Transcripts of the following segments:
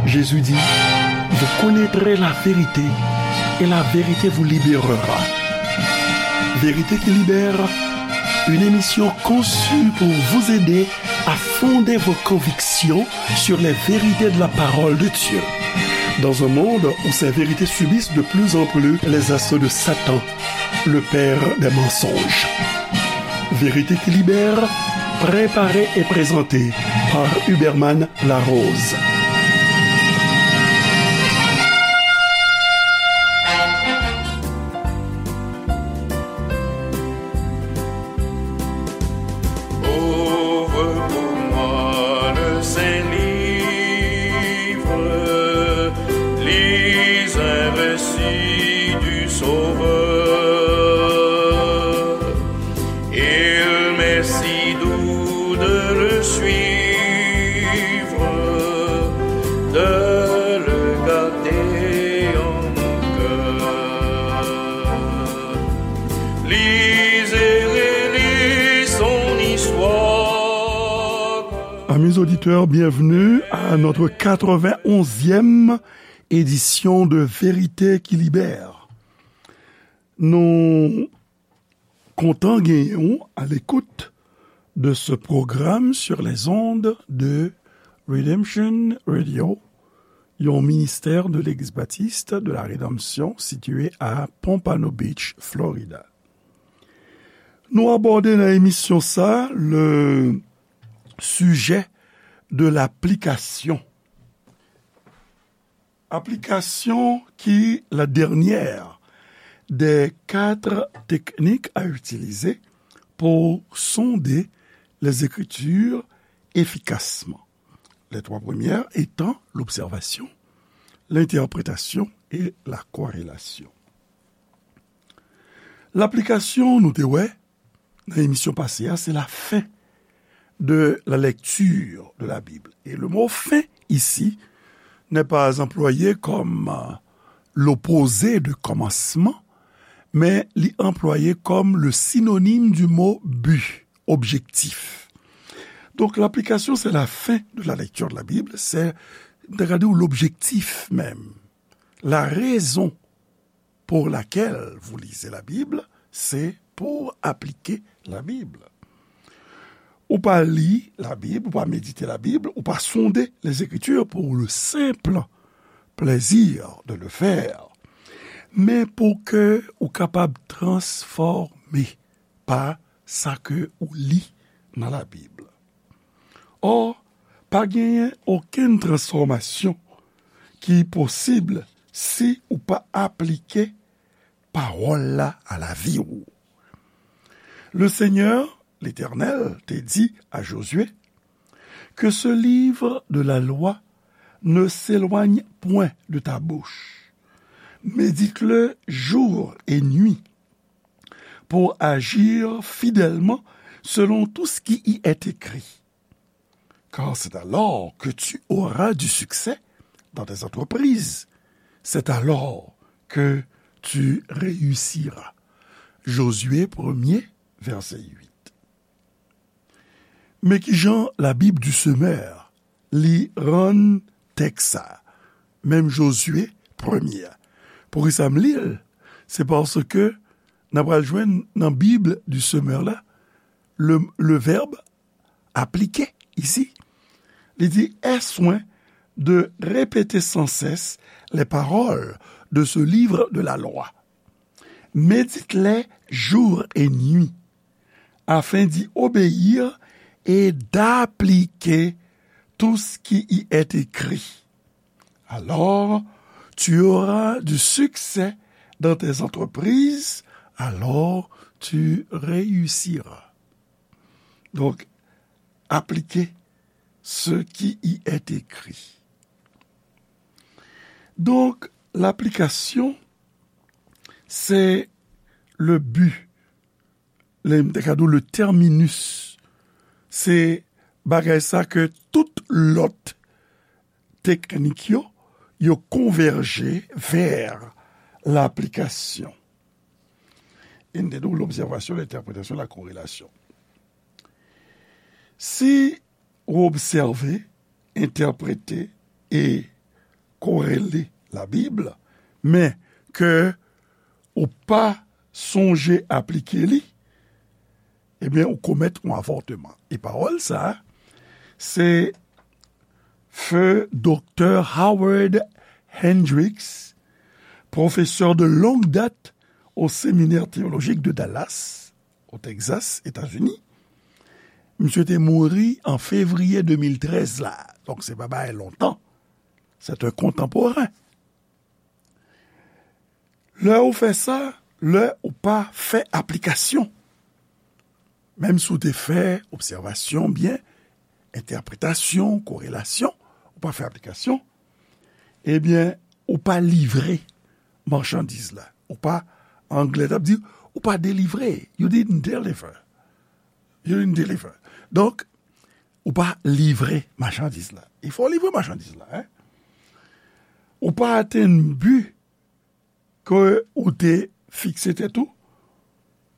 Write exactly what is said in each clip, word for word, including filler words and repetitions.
Jésus dit, vous connaîtrez la vérité et la vérité vous libérera. Vérité qui libère, une émission conçue pour vous aider à fonder vos convictions sur les vérités de la parole de Dieu. Dans un monde où ces vérités subissent de plus en plus les assauts de Satan, le père des mensonges. Vérité qui libère, préparée et présentée par Huberman Larose. Ouvre pour moi le Saint Livre, lis un récit du Sauveur. Il m'est si doux de le suivre, de le garder en mon cœur. Lis et relis son histoire. Amis auditeurs, bienvenue à notre quatre-vingt-onzième édition de Vérité qui Libère. Nou kontan genyen w à l'écoute de ce programme sur les ondes de Redemption Radio, yon ministè de Legliz Batis de la Redanmsyon sitiye a Pompano Beach, Florida. Nou abòde nan emisyon sa le sujet de l'application. Application qui est la dernière des quatre techniques à utiliser pour sonder les Écritures efficacement. Les trois premières étant l'observation, l'interprétation et la corrélation. Laplikasyon, nou te wè, nan emisyon pase a, c'est la fin de la lecture de la Bible. Et le mot fin ici n'est pas employé comme, euh, l'opposé de commencement, mais il est employé comme le synonyme du mot but, objectif. Donc, l'application, c'est la fin de la lecture de la Bible, c'est, regardez, l'objectif même, la raison pour laquelle vous lisez la Bible, c'est pour appliquer la Bible. Ou pa li Labib, ou pa medite Labib, ou pa sonde les Écritures pour le simple plaisir de le faire, men pou ke ou kapab transfòme pa sa ke ou li nan Labib. Or, pa genyen okenn transfòmasyon ki posib si ou pa aplike pawòl la a lavi w. Le Seigneur, l'Éternel, te di a Josué, que ce livre de la loi ne s'éloigne point de ta bouche. Médite-le jour et nuit pour agir fidèlement selon tout ce qui y est écrit. Car c'est alors que tu auras du succès dans tes entreprises. C'est alors que tu réussiras. Josué premier, verset huit. Men kijan Labib du Semeur li rann tèks sa, menm Josué premye a. Poukisa m li l? Se paske n a pral jwenn nan Bib du Semeur la, le, le verbe appliquer ici. Li di, aie soin de répéter sans cesse les paroles de ce livre de la loi. Médite-les jour et nuit, afin d'y obéir et d'appliquer tout ce qui y est écrit. Alors, tu auras du succès dans tes entreprises, alors tu réussiras. Donc, appliquer ce qui y est écrit. Donc, l'application, c'est le but, le, le terminus. Se bagay sa ke tout lòt teknik yo, yo konvèje vè laplikasyon. E n te di w l'observation, l'interprétation, la corrélation. Si ou obsève entèprete e korele Labib, men ke ou pa sonje aplike li, ebyen, ou komèt yon avòtman. E pawòl sa a, se Feu Doktè Howard Hendricks, professeur de longue date au Séminaire théologique de Dallas, au Texas, États-Unis. Misye te mouri an fevriye de mil trèz la. Donk, se pa bagay lontan. C'est un contemporain. Lè ou fè sa, lè ou pa fè aplikasyon. Menm si w te fè obsèvasyon byen, entèpretasyon, korelasyon, ou pa fè aplikasyon, ebyen, ou pa livre machandiz la. Ou pa, anglè t ap di, ou pa delivre. You didn't deliver. You didn't deliver. Donk, ou pa livre machandiz la. Il faut livre machandiz la, hein? Ou pa atenn bi ke ou te fikse tèt ou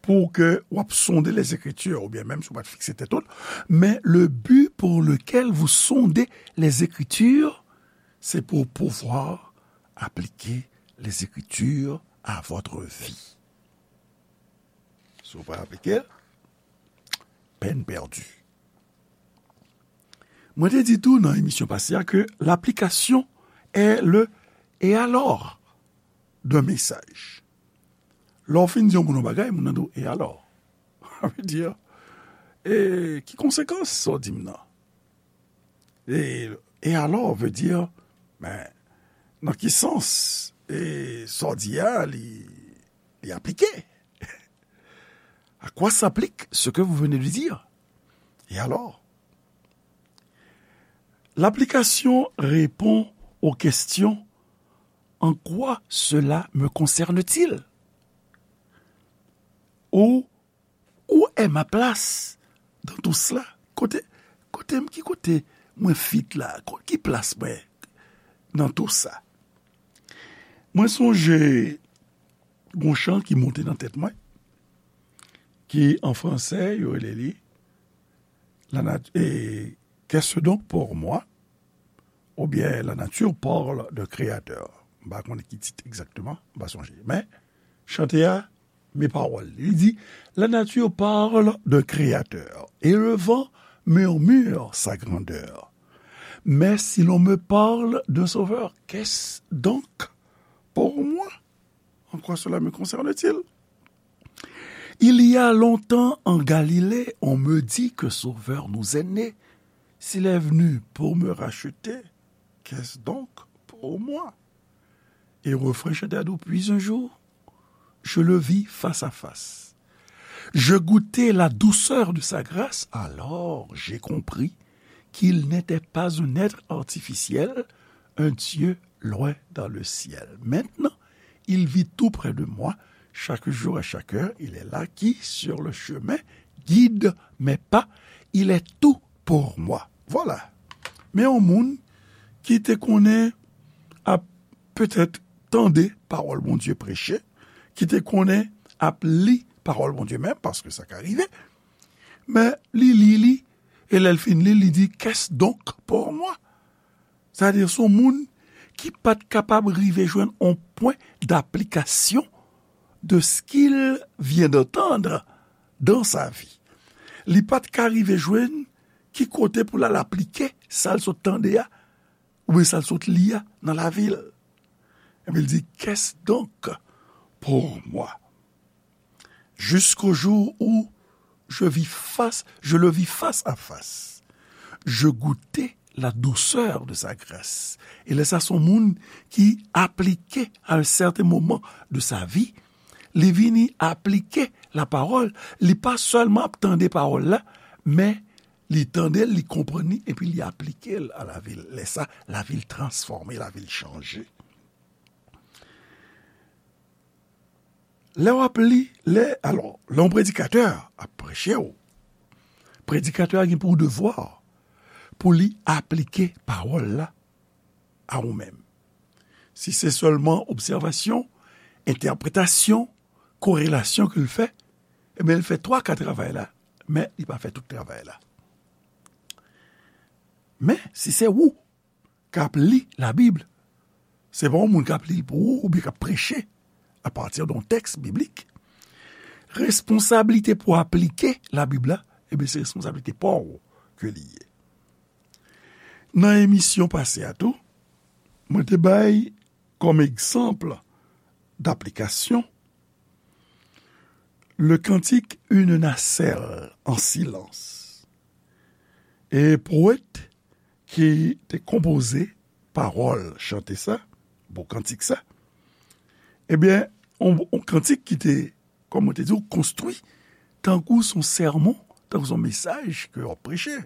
pou ke w ap sonde les Écritures, oubyen menm si w pa t fikse tèt ou, mais le but pour lequel vous sondez les Écritures, c'est pour pouvoir appliquer les Écritures à votre vie. Si w pa aplike l, peine perdue. Mwen te di tou nan emisyon pase a ke l'application est le et alors d'un message. Lè w fin di yon moun yon bagay, moun nan di w, et alors? Sa vle di, e ki konsekans sa w di m nan? E, et alors veut dire, men, nan ki sans, e sa w di a, li, li aplike? À quoi s'applique ce que vous venez de dire? Et alors? L'application répond aux questions: en quoi cela me concerne-t-il? Où, où est ma place dans tout cela? Kote, kote m, ki kote mwen fit la? Ko-, ki plas mwen nan tou sa? Mwen sonje gon chan ki monte nan tèt mwen, ki an fransè, yo rele li, la nat-, e, Qu'est-ce donc pour moi? Oubyen La nature parle d'un créateur. M pa konnen ki tit egzakteman, m pa sonje. Men, chante a, men pawòl li. Li di, La nature parle d'un créateur, et le vent murmure sa grandeur. Mais si l'on me parle d'un sauveur, qu'est-ce donc pour moi? En quoi cela me concerne-t-il? Il y a longtemps en Galilée, on me dit que Sauveur nous est né. S'il est venu pour me racheter, qu'est-ce donc pour moi? Et refrain chante à doux, puis un jour, je le vis face à face. Je goûtai la douceur de sa grâce, alors j'ai compris qu'il n'était pas un être artificiel, un Dieu loin dans le ciel. Maintenant, il vit tout près de moi, chaque jour et chaque heure, il est là qui, sur le chemin, guide mes pas, il est tout pour moi. Voilà. Men yon moun ki te konnen ap petèt tande pawòl Bondye preche, ki te konnen ap li pawòl Bondye menm, paske sa ka rive, men li li li, e lè l fin li, li di, Qu'est-ce donc pour moi? Sa vle di, se yon moun ki pa t kapab rive jwenn yon pwen d'application de ce qu'il vient d'entendre dans sa vie. Li pa t ka rive jwenn ki kote pou l al aplike sa l sot tande a, oubyen sa l sot li a nan lavi l. Epi l di, Qu'est-ce donc pour moi? Jusqu'au jour où je vis face, je le vis face à face. Je goûtai la douceur de sa grâce. E lè sa, se yon moun ki aplike à un certain moment de sa vie, li vini aplike la parole, li pa sèlman ap tande pawòl la, men li tande l, li konprann li, epi li aplike l a lavi l. Lè sa, lavi l transfòme, lavi l chanje. Lè w ap li, lè, alò, lè yon predikatè ap preche w, predikatè a gen pou devwa pou li aplike pawòl la a ou menm. Si se sèlman obsèvasyon, entèpretasyon, korelasyon ke l fè, ebyen, l fè twa ka travay la, men li pa fè tout travay la. Men, si se ou k ap li Labib, se pa yon moun k ap li l pou ou oubyen k ap preche apati de yon tèks biblik. Responsablite pou aplike Labib la, ebyen, se responsablite pa w ke li ye. Nan emisyon pase a tou, mwen te bay kòm egzanp daplikasyon le cantique Une nacelle en silence. E powèt ki te konpoze pawòl chante sa, bon kantik sa, ebyen, yon, yon kantik ki te, kòm mwen te di w, konstwi tankou s on sèmon, tankou s on mesaj ke w ap preche.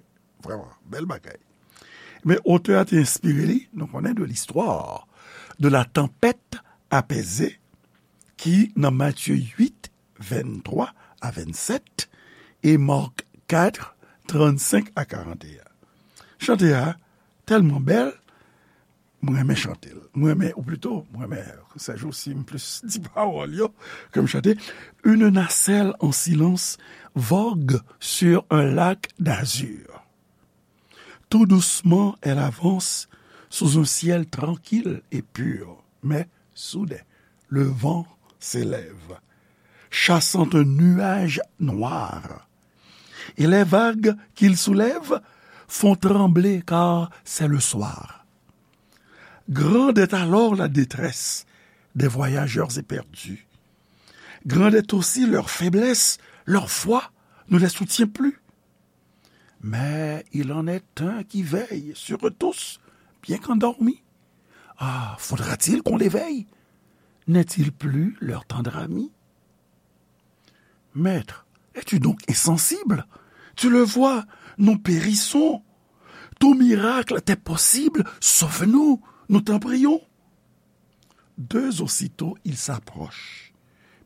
Vrèman, bèl bagay. Men otè a te enspire li, nou konnen, de l'histoire de la tempête apaisée ki nan Matye uit, venntwa a vennsèt, e Mark kat, trannsenk a karanteyen. Chante a tèlman bèl, mwen renmen chante l. Mwen renmen, ou plito, mwen renmen, se jou si m plis di pawòl yo ke m chante. Une nacelle en silence vogue sur un lac d'azur. Tout doucement, elle avance sous un ciel tranquille et pur. Mais soudain, le vent s'élève, chassant un nuage noir. Et les vagues qu'il soulève font trembler, car c'est le soir. Grande est alors la détresse des voyageurs éperdus. Grande est aussi leur faiblesse, leur foi ne les soutient plus. Mais il en est un qui veille sur eux tous, bien qu'endormi. Ah, faudra-t-il qu'on l'éveille? N'est-il plus leur tendre ami? Maître, es-tu donc insensible? Tu le vois, nous périssons. Tout miracle t'est possible, sauve-nous, nous t'en prions. Deux aussitôt, il s'approche.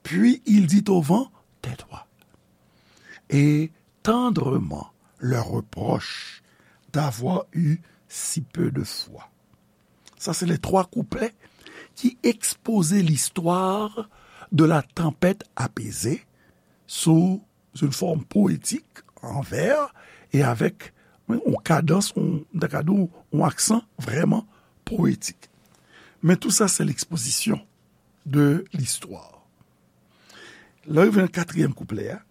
Puis il dit au vent, tais-toi. Et tendrement leur reproche d'avoir eu si peu de foi. Sa se les trois couplets ki ekspoze listwa de la tempête apaisée sous une forme poétique, en vers, et avec yon kadans, yon, m ta ka di w, yon aksan vrèman poetik. Men tou sa se l'exposition de l'histoire. Lè w rive nan katriyèm kouplè a,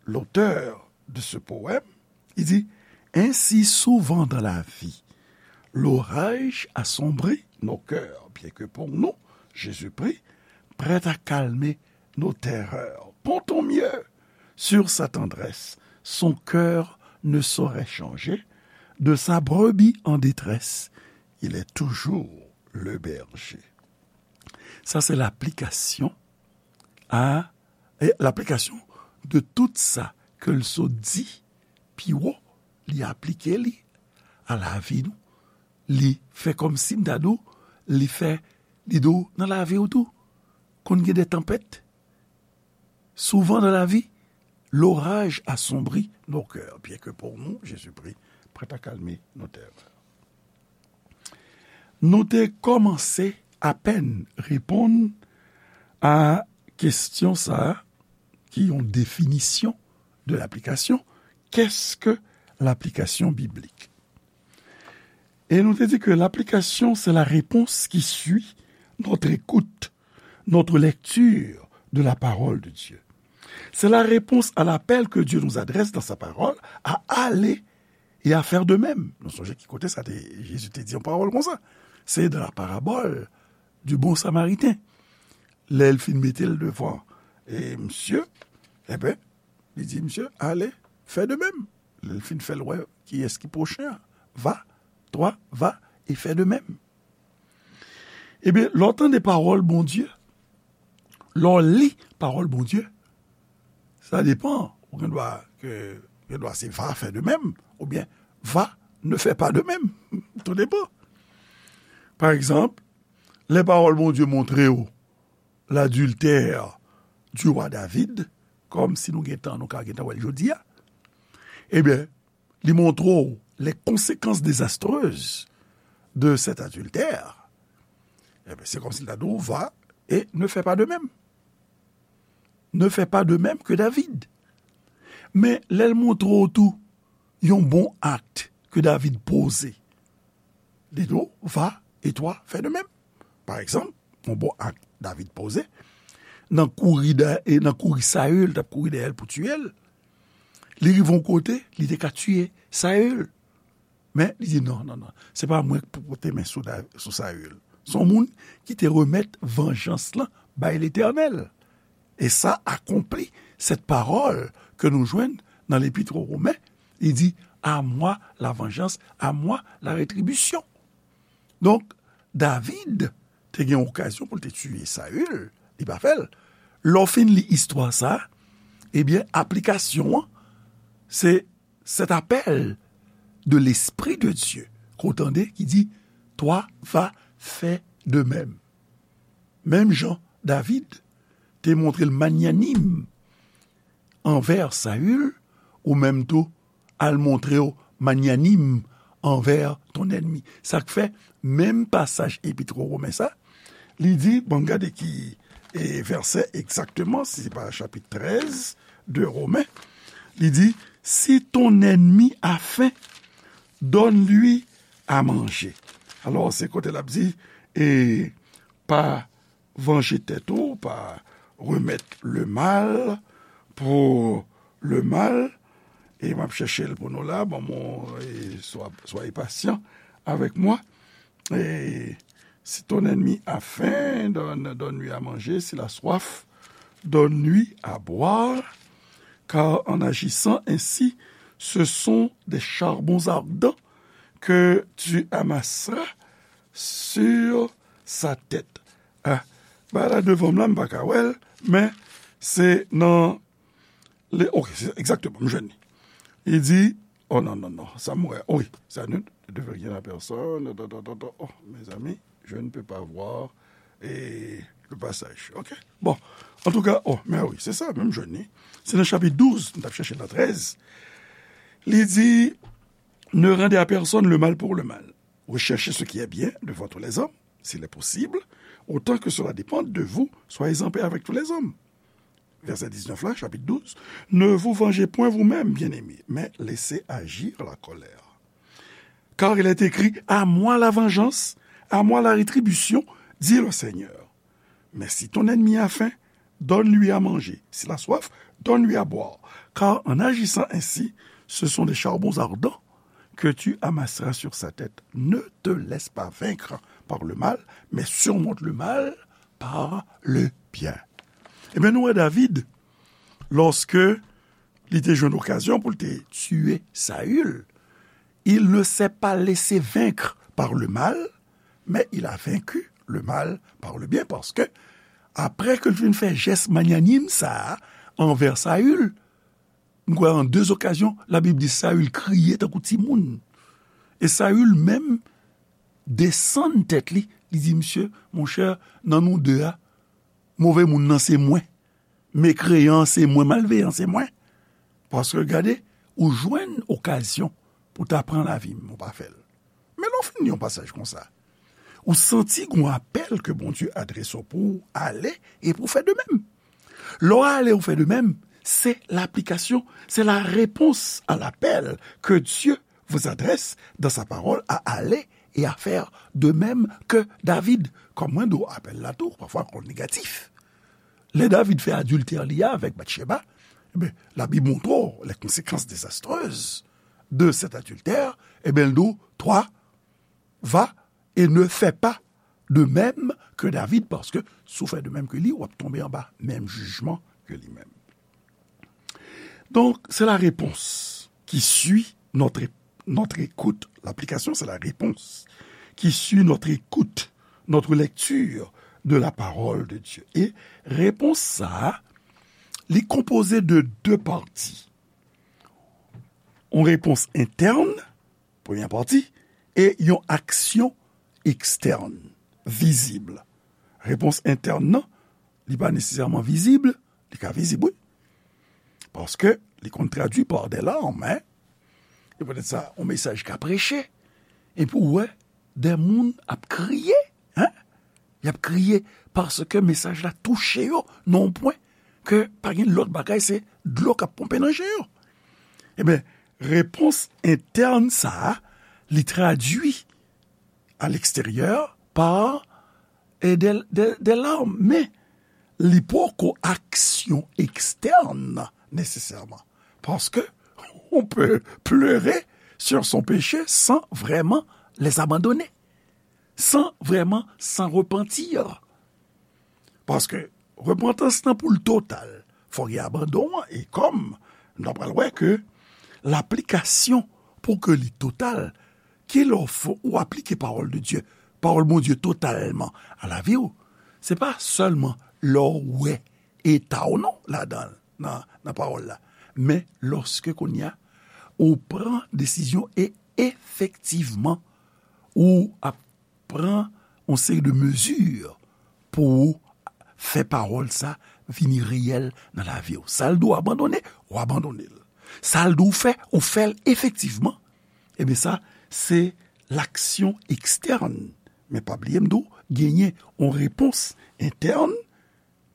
l'auteur de ce poème, il dit, ainsi souvent dans la vie, l'orage assombrit nos cœurs, bien que pour nous, Jésus prit, prêt à calmer nos terreurs. Comptons mieux sur sa tendresse, son cœur ne saurait changer, de sa brebis en détresse, il est toujours le berger. Sa se laplikasyon a, e, laplikasyon de tout sa ke l sot di pi wo, li aplike li a lavi nou. Li fè kòmsi m ta di w, li fè, li di w nan lavi w tou, konn gen de tanpèt. Souvent dans la vie, l'orage assombrit nos cœurs, bien que pour nous, Jésus prit, prêt à calmer nos terreurs. Nou te kòmanse apèn reponn a kesyon sa a, ki yon definisyon de laplikasyon. Qu'est-ce que l'application biblique? Et nous te dit que l'application, c'est la réponse qui suit notre écoute, notre lecture de la parole de Dieu. C'est la réponse à l'appel que Dieu nous adresse dans sa parole à aller et à faire de même. Nou sonje ki kote sa te, Jezi te di yon pawòl konsa. Se dans la parabole du bon samaritain. Lè l fin mete l devan, e, misye, enben, li di misye, allez, fais de même. Lè l fin fè l wè kiyès ki pwochen an, va, toi, va et fais de même. Ebyen, lè w tande pawòl Bondye, lè w li pawòl Bondye, sa depan, ou gen dwa ke, gen dwa se va, fais de même, oubyen va, ne fais pas de même. Tout depan. Pa egzanp, lè pawòl Bondye montre w l'adultère du roi David, kòm si nou gen tan, nou ka gen tan wè l jodi a, ebyen, li montre w les conséquences désastreuses de cet adultère. Ebyen, se kòmsi l ta di w, va et ne fais pas de même. Ne fais pas de même que David. Men, lè l montre w tou yon bon ak ke David poze, Li di w, va, et toi, fais de même. Pa egzanp, yon bon ak David poze, nan kouri dèyè, e nan kouri Saül, t ap kouri dèyè l pou tiye l, li rive yon kote, li te ka tiye Saül. Men, li di, non, non, non, se pa mwen ki pou pote men sou, Da- sou Saül. Se yon moun ki te remèt vanjans lan bay Letènèl. E sa akonpli cette parole ke nou jwenn nan lepit o Romen. Li di, à moi la vengeance, à moi la rétribution. Donk, David te gen okazyon pou l te tiye Saül, li pa fè l. Lè w fin li istwa sa, ebyen, aplikasyon an, se cet appel de l'Esprit de Dieu, ke w tande ki di, toi va fè de même. Menm jan David te montre l manyanim anvè Saül, ou menm tou, al montre w manyanim anvè ton ènmi. Sa k fè, menm pasaj epit o Romen sa, li di, bon, gade ki e, vèsè egzakteman, si se pa chapit trèz de Romen, li di, si ton ennemi a faim, donne-lui à manger. Alò, se kote l ap di, e, pa vanje tèt ou, pa remèt le mal pour le mal. E m ap chèche l pou nou la, bon, mon, e, swa, soyez patient avec moi. Et si ton ennemi a faim, donne, donne-lui à manger. S'il a soif, donne-lui à boire. Car en agissant ainsi, ce sont des charbons ardents que tu amasseras sur sa tête. Ah, ba la devan m la, m pa ka wè l, men se nan, le, ok, se egzakteman, m jwenn li. Li di, oh non, non, non, sa m wè, wi, ça ne devait rien à personne, oh, mes amis, je ne peux pas voir, et le passage, ok? Bon, antouka, oh, men wi, se sa, men m jwenn li. Se nan chapit douz, m t ap chèche nan trèz. Li di, ne rendez à personne le mal pour le mal. Recherchez ce qui est bien devant tous les hommes, s'il est possible, autant que cela dépende de vous, soyez en paix avec tous les hommes. Verset dix-neuf là, chapitre douze. Ne vous vengez point vous-même, bien-aimés, mais laissez agir la colère. Car il est écrit, à moi la vengeance, à moi la rétribution, dit le Seigneur. Mais si ton ennemi a faim, donne-lui à manger. S'il a soif, donne-lui à boire. Car en agissant ainsi, ce sont des charbons ardents que tu amasseras sur sa tête. Ne te laisse pas vaincre par le mal, mais surmonte le mal par le bien. Ebyen, nou wè David, lòske li te jwenn okazyon pou l te tiye Saül, il ne s'est pas laissé vaincre par le mal, mais il a vaincu le mal par le bien, paske apre ke l fin fè jès magnanim sa a anvè Saül, m kwè an de okazyon, Labib di Saül kriye tankou timoun. E Saül menm desann tèt li, li di, misye, monchè, nan nou de a, move moun nan se mwen. Mekreyan an se mwen, malveyan an se mwen. Paske gade, ou jwenn okazyon pou ta pran lavi m, ou pa fè l. Men lè w fin li yon pasaj konsa, ou santi gon apèl ke Bondye adrese w pou w ale e pou w fè de menm. Lè w ale ou fè de menm, se laplikasyon, se la réponse à l'appel que Dieu vous adresse dans sa parole à aller et à faire de même que David. Kòm mwen di w, apèl la tou, pafwa konn negatif. Lè David fè adiltè li a avèk Batcheba, ebyen, Labib montre w les conséquences désastreuses de cet adultère, ebyen, l di w, toi, va et ne fais pas de même que David, paske si w fè de menm ke li, w ap tonbe anba menm jijman ke li menm. Donc, c'est la réponse qui suit notre, notre écoute. L'application, c'est la réponse qui suit notre écoute, notre lecture de la parole de Dieu. E repons sa a, li konpoze de de pati. Yon repons entèn, premyè pati, e yon aksyon ekstèn, vizib. Repons entèn nan, li pa nesesèman vizib, li ka vizib, wi. Paske li konn tradui pa de larm, en. E poutèt sa, yon mesaj ka preche, epi w wè de moun ap kriye, en. Y ap kriye paske mesaj la touche yo nan yon pwen ke pa gen lòt bagay, se dlo k ap ponpe nan je yo. Ebyen, repons entèn sa a, li tradui à l'extérieur par e de, de, de larmes, men li poko aksyon ekstèn nesesèman. Paske on peut pleurer sur son péché sans vraiment les abandonner, sans vraiment s'en repentir. Paske repantans nan pou l total, fò gen abandon an, e kòm n ap pral wè ke laplikasyon pou ke li total, ki lè w fè, ou aplike pawòl de Dye, pawòl Bondye totalman a lavi w, se pa sèlman lè w wè eta w non ladan l, nan, nan pawòl la, men lòske kounye a ou pran desizyon e efektivman ou ap pran yon seri de mezi pou w fè pawòl sa vini reyèl nan lavi w. Sa l di w abandone, ou abandone l. Sa l di w fè, ou fè l efektivman. Ebyen sa, se laksyon ekstèn. Men pa bliye m di w, genyen yon repons entèn,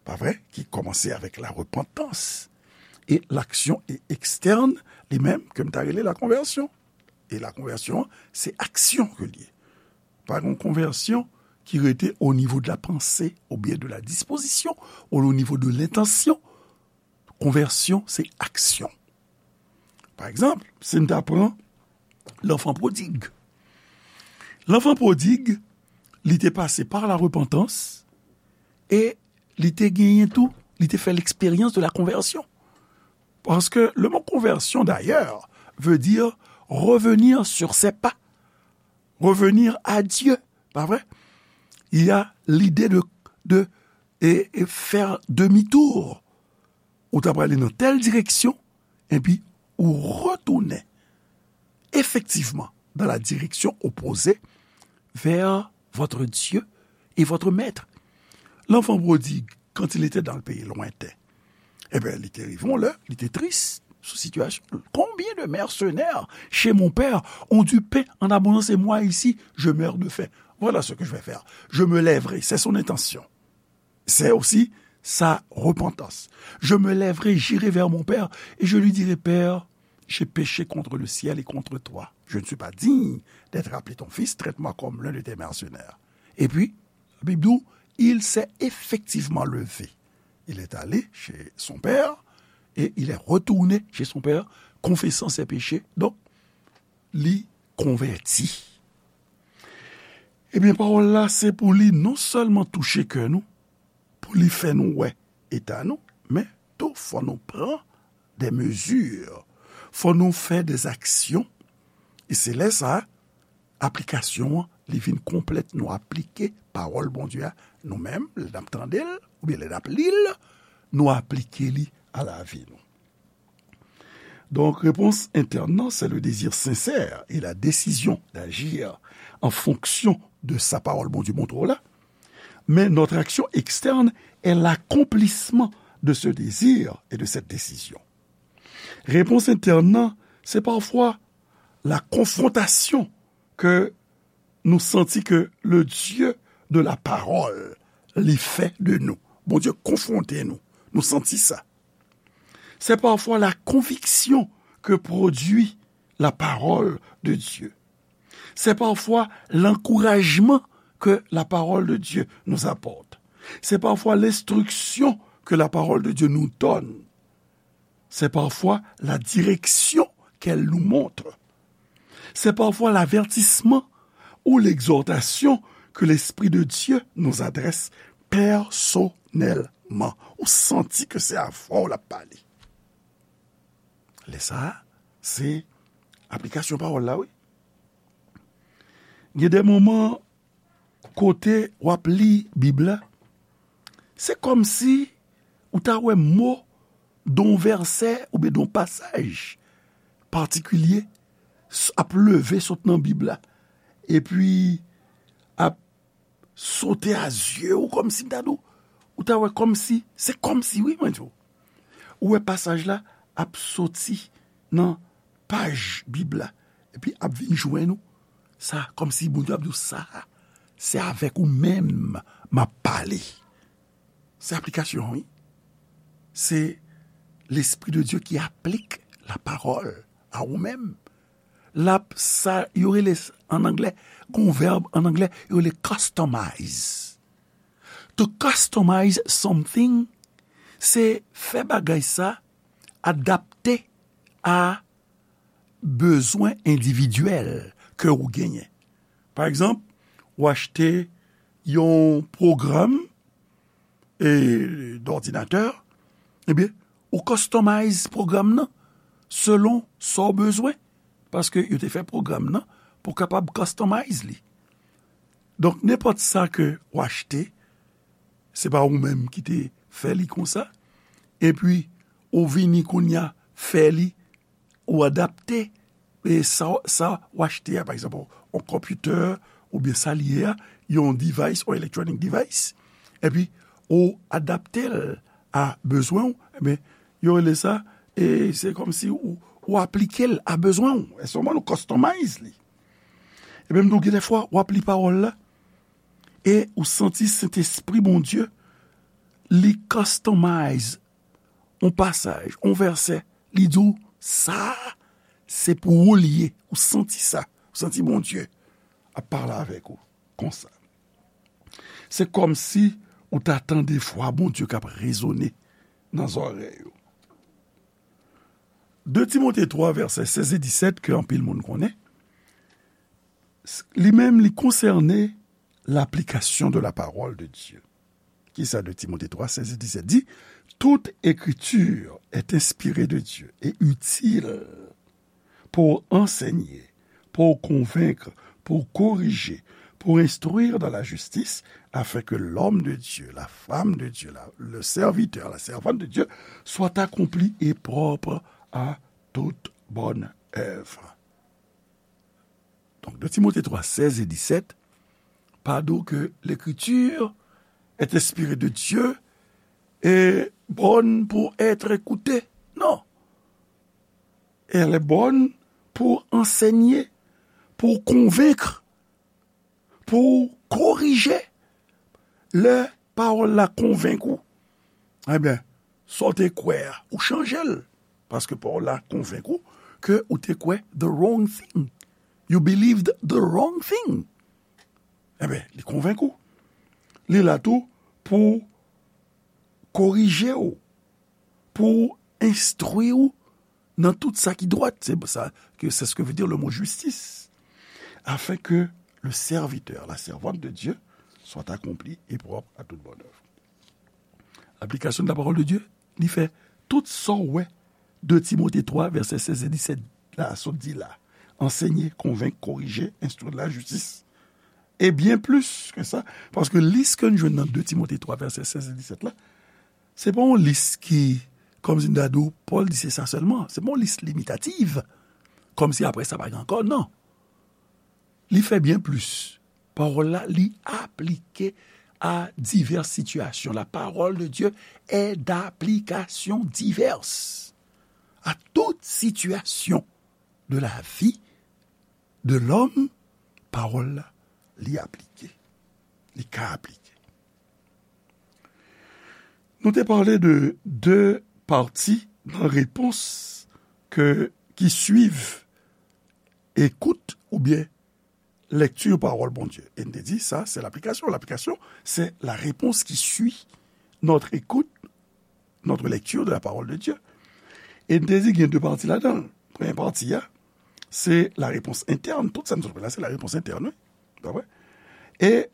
pa vre, ki kòmanse avèk la repantans. E laksyon e ekstèn, li menm, ke m ta rele la konvèsyon. E la konvèsyon, se aksyon ke l ye. Pa gen konvèsyon ki rete o nivo de la panse, oubyen de la dispozisyon, ou o nivo de lentansyon. Konvèsyon, se aksyon. Pa egzanp, si n ta pran lanfan pwodig. Lanfan pwodig, li te pase pa la repantans e li te genyen tou, li te fè l'expérience de la conversion. Paske le mot conversion, d'ailleurs, veut dire revenir sur ses pas, revenir à Dieu, pa vre? Il y a l'idée de, de et, et faire demi-tour. Ou ta prale nan tèl direksyon, epi ou retounen efektivman dans la direction opposée vers votre Dieu et votre maître. L'enfant prodigue, quand il était dans le pays lointain, eh bien, li te rive yon lè, li te tris sou sitiyasyon. Combien de mercenaires chez mon père ont du pain en abondance et moi ici, je meurs de faim. Voilà ce que je vais faire. Je me lèverai. C'est son intention. C'est aussi sa repentance. Je me lèverai, j'irai vers mon père et je lui dirai, Père, j'ai péché contre le ciel et contre toi. Je ne suis pas digne d'être appelé ton fils, traite-moi comme l'un de tes mercenaires. Et puis, la Bible dit, il s'est effectivement levé. Il est allé chez son père et il est retourné chez son père, confessant ses péchés. Donk, li konvèti. Ebyen, pawòl la, se pou li non sèlman touche kè nou, pou li fè nou wè eta nou, men tou fò nou pran de mezi, fò nou fè de aksyon. E se lè sa a, aplikasyon an, li vin konplèt. Nou aplike pawòl Bondye a, nou menm, lè n ap tande l, oubyen lè n ap li l, nou aplike li a lavi nou. Donc, réponse interne, c'est le désir sincère et la décision d'agir en fonction de sa parole Bondye montre w la. Mais notre action externe est l'accomplissement de ce désir et de cette décision. Réponse interne, c'est parfois la confrontation ke nou santi ke le Dieu de la parole li fè de nou. Bondye konfwonte nou. Nou santi sa. C'est parfois la conviction que produit la parole de Dieu. C'est parfois l'encouragement que la parole de Dieu nous apporte. C'est parfois l'instruction que la parole de Dieu nous donne. C'est parfois la direction qu'elle nous montre. C'est parfois l'avertissement ou l'exhortation que l'Esprit de Dieu nous adresse personnellement. Ou santi ke se avè w l ap pale. Lè sa a, se aplikasyon pawòl la, wi. Gen de moman kote w ap li Bib la, se kòmsi ou ta wè mo de yon vèsè oubyen de yon pasaj patikilye s-, ap leve sot nan Bib la, epi ap sote a zye w, kòmsi m ta di w, ou ta wè kòmsi, se kòmsi, wi, mwen di w. Ou wè pasaj la ap soti nan paj Bib la, epi ap vin jwenn ou. Sa, kòmsi Bondye ap di w, sa, se avèk ou menm m ap pale. Se aplikasyon, wi. Se Lespri de Dye ki aplik la parole a ou menm. l ap sa yo rele an anglè, gon vèb an anglè, yo rele customize. To customize something, se fè bagay sa adapte a bezwen endividyèl ke ou genyen. Pa egzanp, ou achte yon pwogram e, dòdinatè, ebyen, ou customize pwogram nan selon sa w bezwen, paske yo te fè pwogram nan pou w kapab customize li. Donk, nenpòt sa ke w achte, se pa ou menm ki te fè li konsa, epi ou vini kounye a fè li ou adapte e sa, sa w achte a, pa egzanp, yon konpitè oubyen sa l ye a, yon device, yon electronic device, epi ou adapte l a bezwen w, ebyen, yo rele sa, e se kòmsi ou, ou aplike l a bezwen w. E sèlman nou customize li. Ebyen, m di w, gen de fwa, w ap li pawòl la, e ou santi Sentespri Bondye, li customize yon pasaj, yon vèsè, li di w, sa, se pou ou li ye. Ou santi sa. Ou santi Bondye ap pale avèk ou konsa. Se kòmsi ou ta tande vwa Bondye k ap rezone nan zòrèy ou. De Timote twa, vèsè sèz e disèt, ke anpil moun konnen, s-, li menm, li konsène l'application de la parole de Dieu. Kisa de Timote twa, sèz e disèt di? Toute écriture est inspirée de Dieu et utile pour enseigner, pour convaincre, pour corriger, pour instruire dans la justice, afin que l'homme de Dieu, la femme de Dieu, la, le serviteur, la servante de Dieu, soit accompli et propre à toute bonne œuvre. Donk, de Timote twa, sèz e disèt, pa di w ke l'écriture est inspirée de Dieu et bonne pour être écoutée. Non. Elle est bonne pour enseigner, pour convaincre, pou korije. Lè pawòl la konvenk ou, ebyen, sa w te kwè a, ou chanje l. Paske pawòl la konvenk ou ke ou te kwè the wrong thing. You believed the wrong thing. Ebyen, li konvenk ou. Li la tou pou korije w, pou enstwi w nan tout sa ki dwat. C'est ça que, c'est ce que veut dire le mot justice. Afin que le serviteur, la servante de Dieu, soit accompli et propre à toute bonne œuvre. Application de la parole de Dieu, li fè tout sa w wè de Timote twa, vèsè sèz e disèt la, sot di la. Enseigner, convaincre, corriger, instruire la justice. Et bien plus que ça, paske lis ke n jwenn nan de Timote twa, vèsè sèz e disèt la, se pa yon lis ki, kòmsi m ta di w, Pòl di se sa sèlman. Se pa yon lis limitatif. Kòmsi apre sa pa gen ankò, non. Li fè byen plis. Pawòl la, li aplike a divès sitiyasyon. La parole de Dieu est d'application diverse à toute situation de la vie de l'homme. Pawòl la, li aplike. Li ka aplike. Nou te pale de de pati nan repons ke, ki swiv ekout oubyen lèkti pawòl Bondye. E n te di, sa, se laplikasyon. Laplikasyon, c'est la réponse qui suit notre écoute, notre lecture de la parole de Dieu. E n te di, gen de pati ladan l. Premye pati a, se la réponse interne. Tout sa n sot la, se la réponse interne, wi. Pa vre? E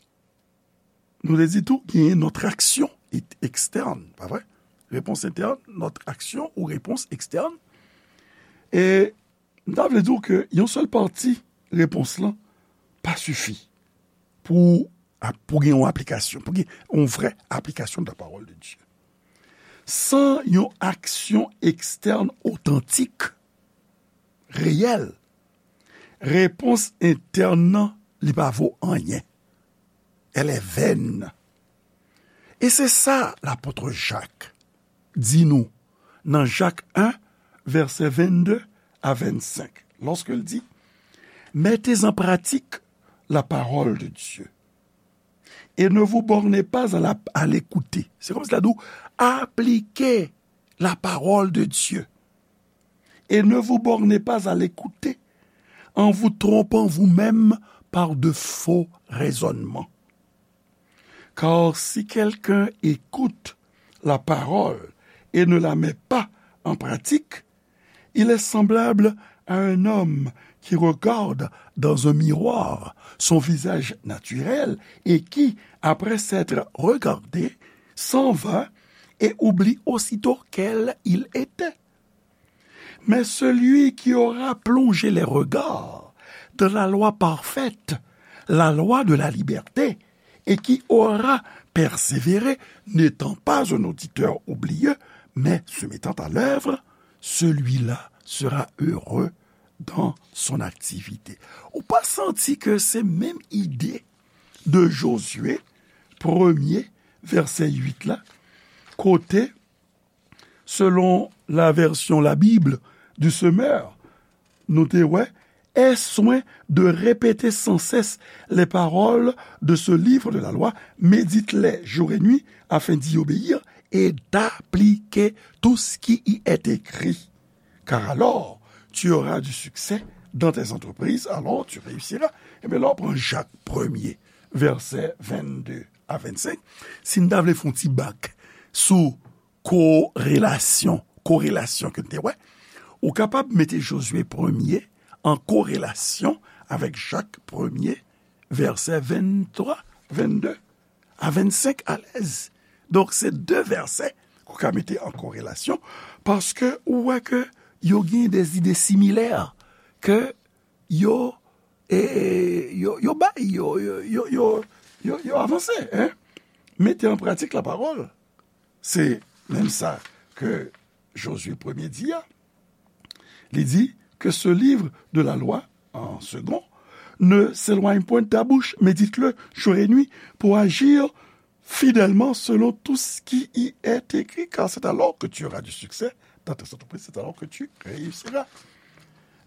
nou te di tou, genyen notre action est externe, pa vre? Réponse interne, notre action ou réponse externe. E m ta vle di w ke yon sèl pati repons lan pa sifi pou, pou gen yon aplikasyon, pou gen yon vrè aplikasyon de la parole de Dieu. San yon aksyon ekstèn otantik, reyèl, repons entèn nan, li pa vo anyen. Elle est vaine. E se sa lapot Jak di nou nan Jak en, vèsè vennde a vennsenk, lòske l di, mettez en pratique la parole de Dieu et ne vous bornez pas à la, à l'écouter. Se kòmsi l ap di w, aplike la parole de Dieu et ne vous bornez pas à l'écouter, en vous trompant vous-même par de faux raisonnements. Car si quelqu'un écoute la parole et ne la met pas en pratique, il est semblable à un homme qui regarde dans un miroir son visage naturel et qui, après s'être regardé, s'en va et oublie aussitôt quel il était. Mais celui qui aura plongé les regards dans la loi parfaite, la loi de la liberté, et qui aura persévéré, n'étant pas un auditeur oublieux, mais se mettant à l'œuvre, celui-là sera heureux dans son activité. Ou pa santi ke se menm ide de Jozye, premye, vèsè uit la, kote, selon la version La Bible du Semeur, nou te wè, aie soin de répéter sans cesse les paroles de ce livre de la loi, médite-les jour et nuit, afin d'y obéir et d'appliquer tout ce qui y est écrit. Car alors, tu auras du succès dans tes entreprises, alors tu réussiras. Ebyen, lè w pran Jak premye, vèsè vennde a vennsenk, si n ta vle fè yon ti bak sou korelasyon, korelasyon ke n te wè, ou kapab mete Jozye premye an korelasyon avèk Jak premye, vèsè venntwa, vennde a vennsenk alèz. Donk, se de vèsè ke w ka mete an korelasyon, paske ou wè ke yo gen de zide similè ke yo, e, yo, yo bay, yo, yo, yo, yo, yo, yo avanse, en. Mete an pratik la parole. Se menm sa ke Jozye premye di a. Li di, que ce livre de la loi, en second, ne s'éloigne point de ta bouche, médite-le jour et nuit pour agir fidèlement selon tout ce qui y est écrit, car c'est alors que tu auras du succès dans tes entreprises, c'est alors que tu réussiras.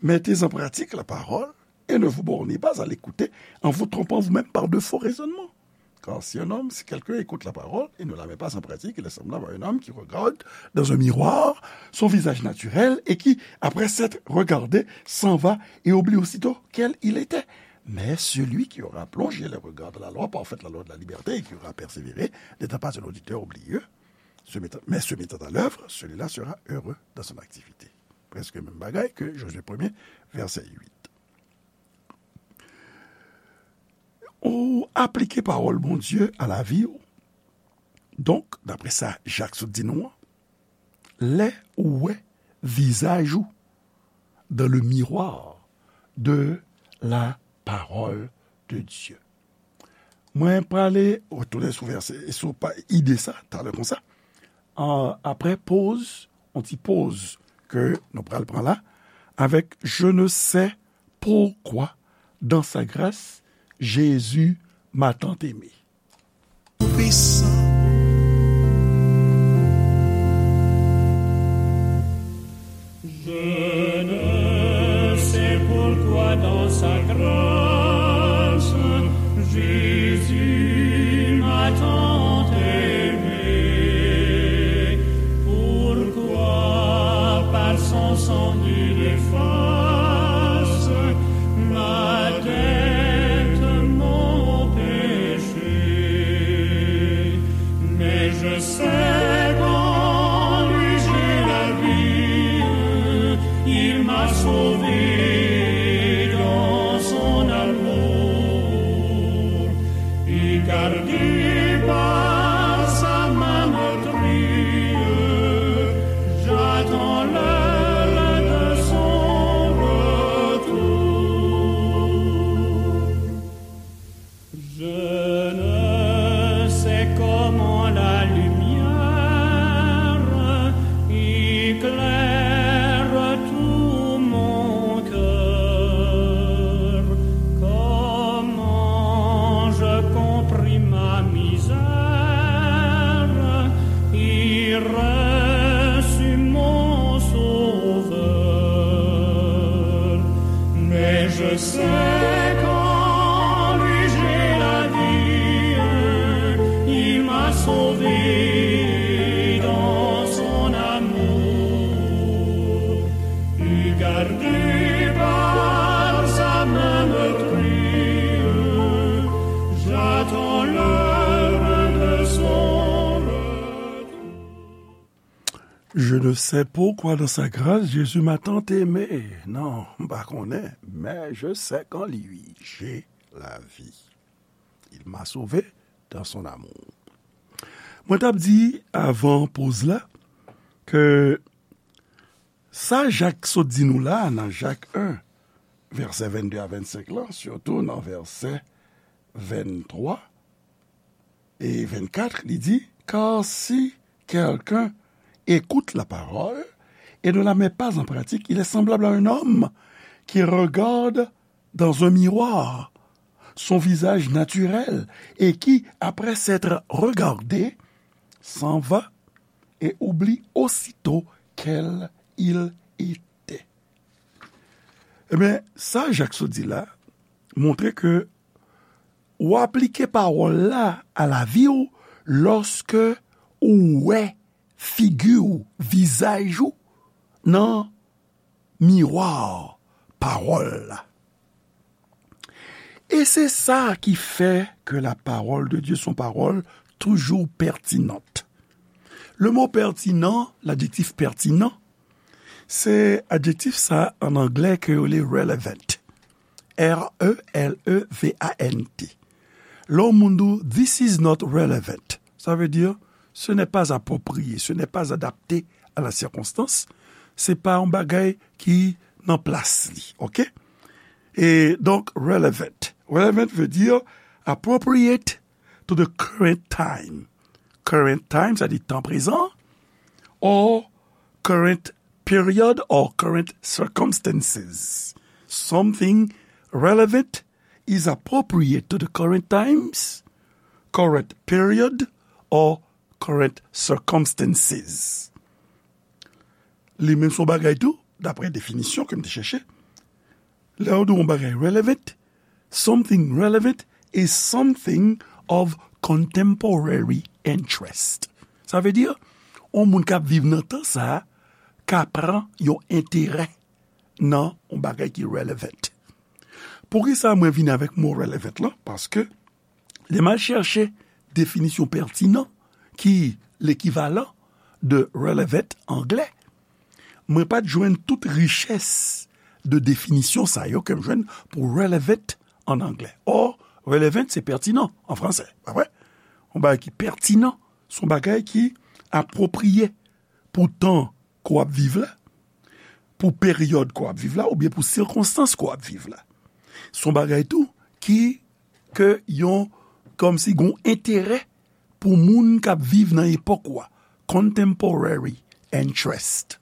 Mettez en pratique la parole et ne vous bornez pas à l'écouter en vous trompant vous-même par de faux raisonnements. Car si un homme, si quelqu'un écoute la parole et ne la met pas en pratique, il est semblable à un homme qui regarde dans un miroir son visage naturel et qui, après s'être regardé, s'en va et oublie aussitôt quel il était. Mais celui qui aura plongé les regards dans la loi parfaite, la loi de la liberté, et qui aura persévéré, n'étant pas un auditeur oublieux, se mettant, mais se mettant à l'œuvre, celui-là sera heureux dans son activité. Prèske menm bagay ke Jozye premye, vèsè uit. Ou aplike pawòl Bondye a lavi w. Donk, daprè sa Jak sot di nou an, lè ou wè vizaj ou dans le miroir de la parole de Dieu. Mwen prale retounen sou vèsè, sou pa, ide sa, talè konsa. An, apre poz, yon ti poz ke nou pral pran la, avèk Je ne sais pourquoi, dans sa grâce, Jésus m'a tant aimé. Tout-Puissant. Je ne sais pourquoi dans sa grâce, Jésus m'a tant aimé. Pourquoi par son sang il efface ma dette, mon péché. Mais je sais qu'en lui j'ai la vie, il m'a sauvé dans son amour, et gardé par sa main meurtrie, j'attends l'heure de son retour. Je ne sais comment la lumière éclaire tout mon cœur, comment je compris ma misère et reçus mon Sauveur. Mais je sais qu'en lui j'ai la vie, il m'a sauvé dans son amour, et gardé par Je ne sais pourquoi dans sa grâce Jésus m'a tant aimé. Non, m pa konnen, mais je sais qu'en lui j'ai la vie. Il m'a sauvé dans son amour. Mwen t ap di avan poz la ke sa Jak sot di nou la nan Jak en, vèsè vennde a vennsenk lan, sitou nan vèsè venntwa e vennkat, li di, car si quelqu'un écoute la parole et ne la met pas en pratique, il est semblable à un homme qui regarde dans un miroir son visage naturel et qui, après s'être regardé, s'en va et oublie aussitôt quel il était. Ebyen, sa Jak sot di la montre ke ou aplike pawòl la a lavi w lòske ou wè figi w, vizaj ou, nan miwa pawòl la. E se sa ki fè ke la parole de Dieu, son pawòl toujou pètinant. Le mot pertinent, l'adjectif pertinent, se adjektif sa an anglè ke yo rele relevant. R E L E V A N T. Lè yon moun di w, this is not relevant, sa vle di, ce n'est pas approprié, ce n'est pas adapté à la circonstance, se pa yon bagay ki nan plas li, oke? E donk, relevant. Relevant vle di appropriate to the current time. Current time, sa di tan prezan, or current period or current circumstances. Something relevant is appropriate to the current times, current period, or current circumstances. Li menm se yon bagay tou, daprè definisyon ke m te chèche, lè yo di yon bagay relevant, something relevant is something of contemporary interest. Sa vle di, yon moun k ap viv nan tan sa a ka pran yon enterè nan yon bagay ki relevant. Poukisa mwen vini avèk mo relevant lan? Paske lè m al chèche definisyon pertinent, ki lekivalan de relevant anglè, mwen pa t jwenn tout richès de definisyon sa yo ke m jwenn pou relevant an anglè. Or, relevant se pertinent an fransè, pa vre? Yon bagay ki pètinan, se yon bagay ki apwopriye pou tan ke w ap viv la, pou peryòd ke w ap viv la, oubyen pou sikonstans ke w ap viv la. Se yon bagay tou ki, ke yon, kòmsi gen yon enterè pou moun k ap viv nan epòk ou a. Contemporary interest.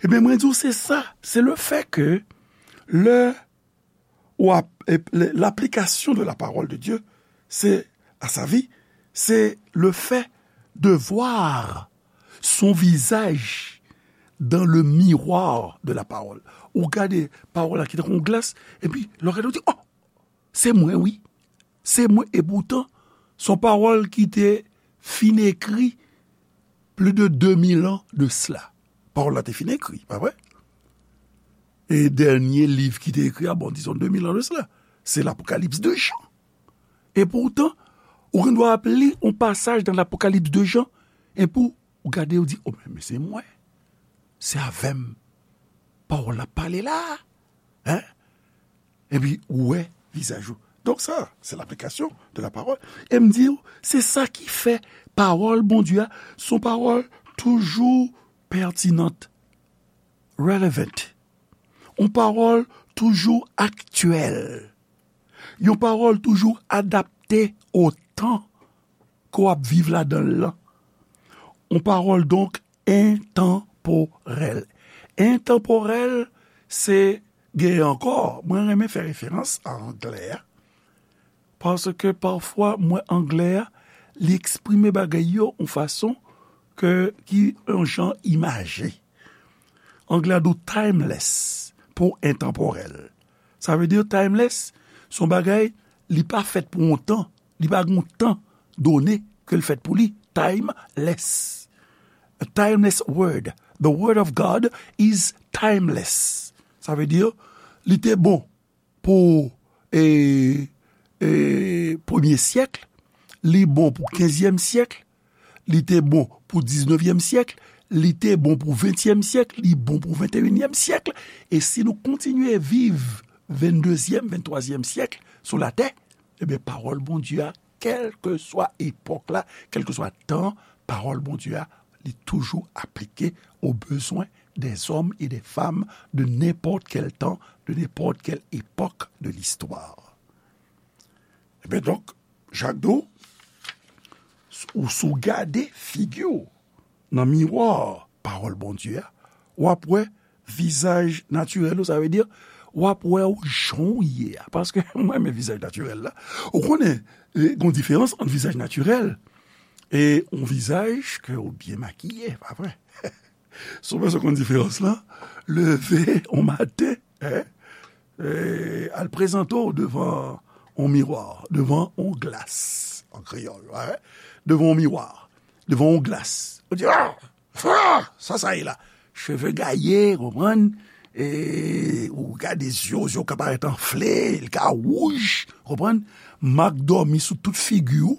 Ebyen, mwen di w, se sa, se le fait que lè ou ap, e, le, l'application de la parole de Dieu, c'est, à sa vie, c'est le fait de voir son visage dans le miroir de la parole. Ou gade pawòl la ki tankou yon glas, epi lè w gade, ou di, oh, se mwen, wi. Se mwen, e poutan, se yon pawòl ki te fin ekri plis de de mil an de sela. Pawòl la te fin ekri, pa vre? E dènye liv ki te ekri a, bon, dizon de mil an de sela, se Lapokalips de Jan. E poutan, ou gen dwa ap li yon pasaj nan Lapokalips de Jan, epi ou gade, ou di, oh, men, men se mwen. Se avè m pawòl la pale la. Hein? Epi ou wè vizaj ou. Donk sa, se l'application de la parole. E m di w, se sa ki fè pawòl Bondye a, se yon pawòl toujou pètinant, relevant. Yon pawòl toujou aktyèl. Yon pawòl toujou adapte o tan ke w ap viv ladan l lan. Yon pawòl donk entanporèl. Entanporèl, se genyen ankò. Mwen renmen fè referans a anglè a. Paske pafwa, mwen, anglè a, li eksprime bagay yo yon fason ke, ki yon jan imaje. Anglè a di w timeless pou entanporèl. Sa vle di timeless, se yon bagay, li pa fèt pou yon tan, li pa gen yon tan done ke l fèt pou li. Timeless. A timeless word. The word of God is timeless. Sa vle di, li te bon pou, e, e, premye syèk, li bon pou kenzyèm syèk, li te bon pou diznevyèm syèk, li te bon pou ventyèm syèk, li bon pou venteyinyèm syèk. E si nou kontinye viv venndezyèm, venntwazyèm syèk sou latè, ebyen, pawòl Bondye a, kèlkeswa epòk la, kèlkeswa tan, pawòl Bondye a, li toujou aplike aux besoins des hommes et des femmes de n'importe quel temps, de n'importe quelle époque de l'histoire. Ebyen, donk, Jakdo, ou si w gade figi w nan miwa pawòl Bondye a, w ap wè vizaj natirèl ou, sa vle di, w ap wè w jan w ye a. Paske mwen renmen vizaj natirèl la. Ou konnen, e, gen yon diferans ant vizaj natirèl e yon vizaj ke w byen makiye, pa vre? Si w bezwen konn diferans lan, leve yon maten, en, e, al prezante w devan yon miwa, devan yon glas, an kreyòl, en, devan yon miwa, devan yon glas. Ou di, "Ah! Ah! Sa, sa ye la?" Cheve gaye, konprann? E, ou gade zye w, zye w ka parèt anfle, li ka wouj, konprann? Mak dòmi sou tout figi w,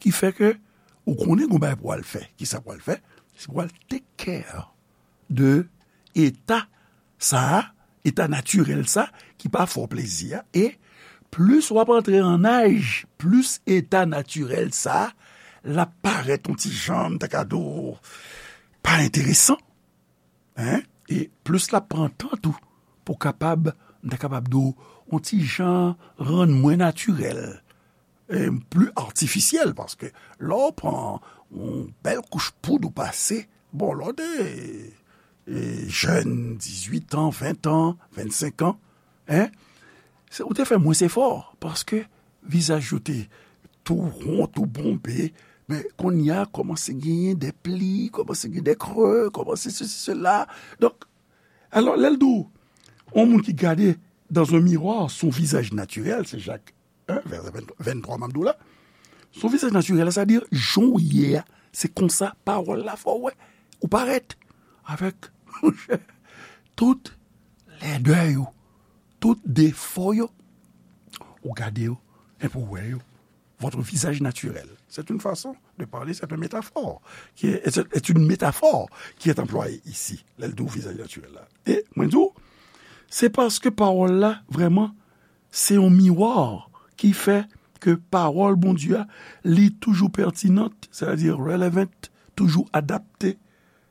ki fè ke ou konnen gon bagay pou w al fè. Kisa pou w al fè? Se pou w al take care de eta sa a, eta natirèl sa, ki pa fè w plezi a. E plis w ap antre an aj, plis eta natirèl sa, l ap parèt yon ti jan, m ta ka di w, pa enteresan. En? E plis l ap pran tan tou pou kapab, m ta kapab di w, yon ti jan rann mwen natirèl, e pli atifisyèl, paske lè w pran yon bèl kouch poud ou pase, bon, lè w te, e, jèn, dizuit an, ven an, vennsenk an, en, se, ou te fè mwens efò, paske vizaj yo te tou won, tou bonbe, men kounye a kòmanse genyen de pli, kòmanse genyen de kre, kòmanse sesi, sela. Donk, alò, lè l di w, yon moun ki gade dans un miroir son visage naturel, se Jak en, vèsè venntwa m ap di w la. Son visaj natirèl, sa di, jan w ye a, se konsa pawòl la fè w wè. Ou parèt avèk, monchè, tout lèdè yo, tout defo yo. Ou gade yo, epi w wè yo. Votre visage naturel. C'est une façon de parler, c'est une métaphore qui est, est, est une métaphore qui est employée ici, lè l di w vizaj natirèl la. E mwen di w, se paske pawòl la, vrèman, se yon miwa ki fè ke pawòl Bondye a, li toujou pètinant, sètadi relevant, toujou adapte,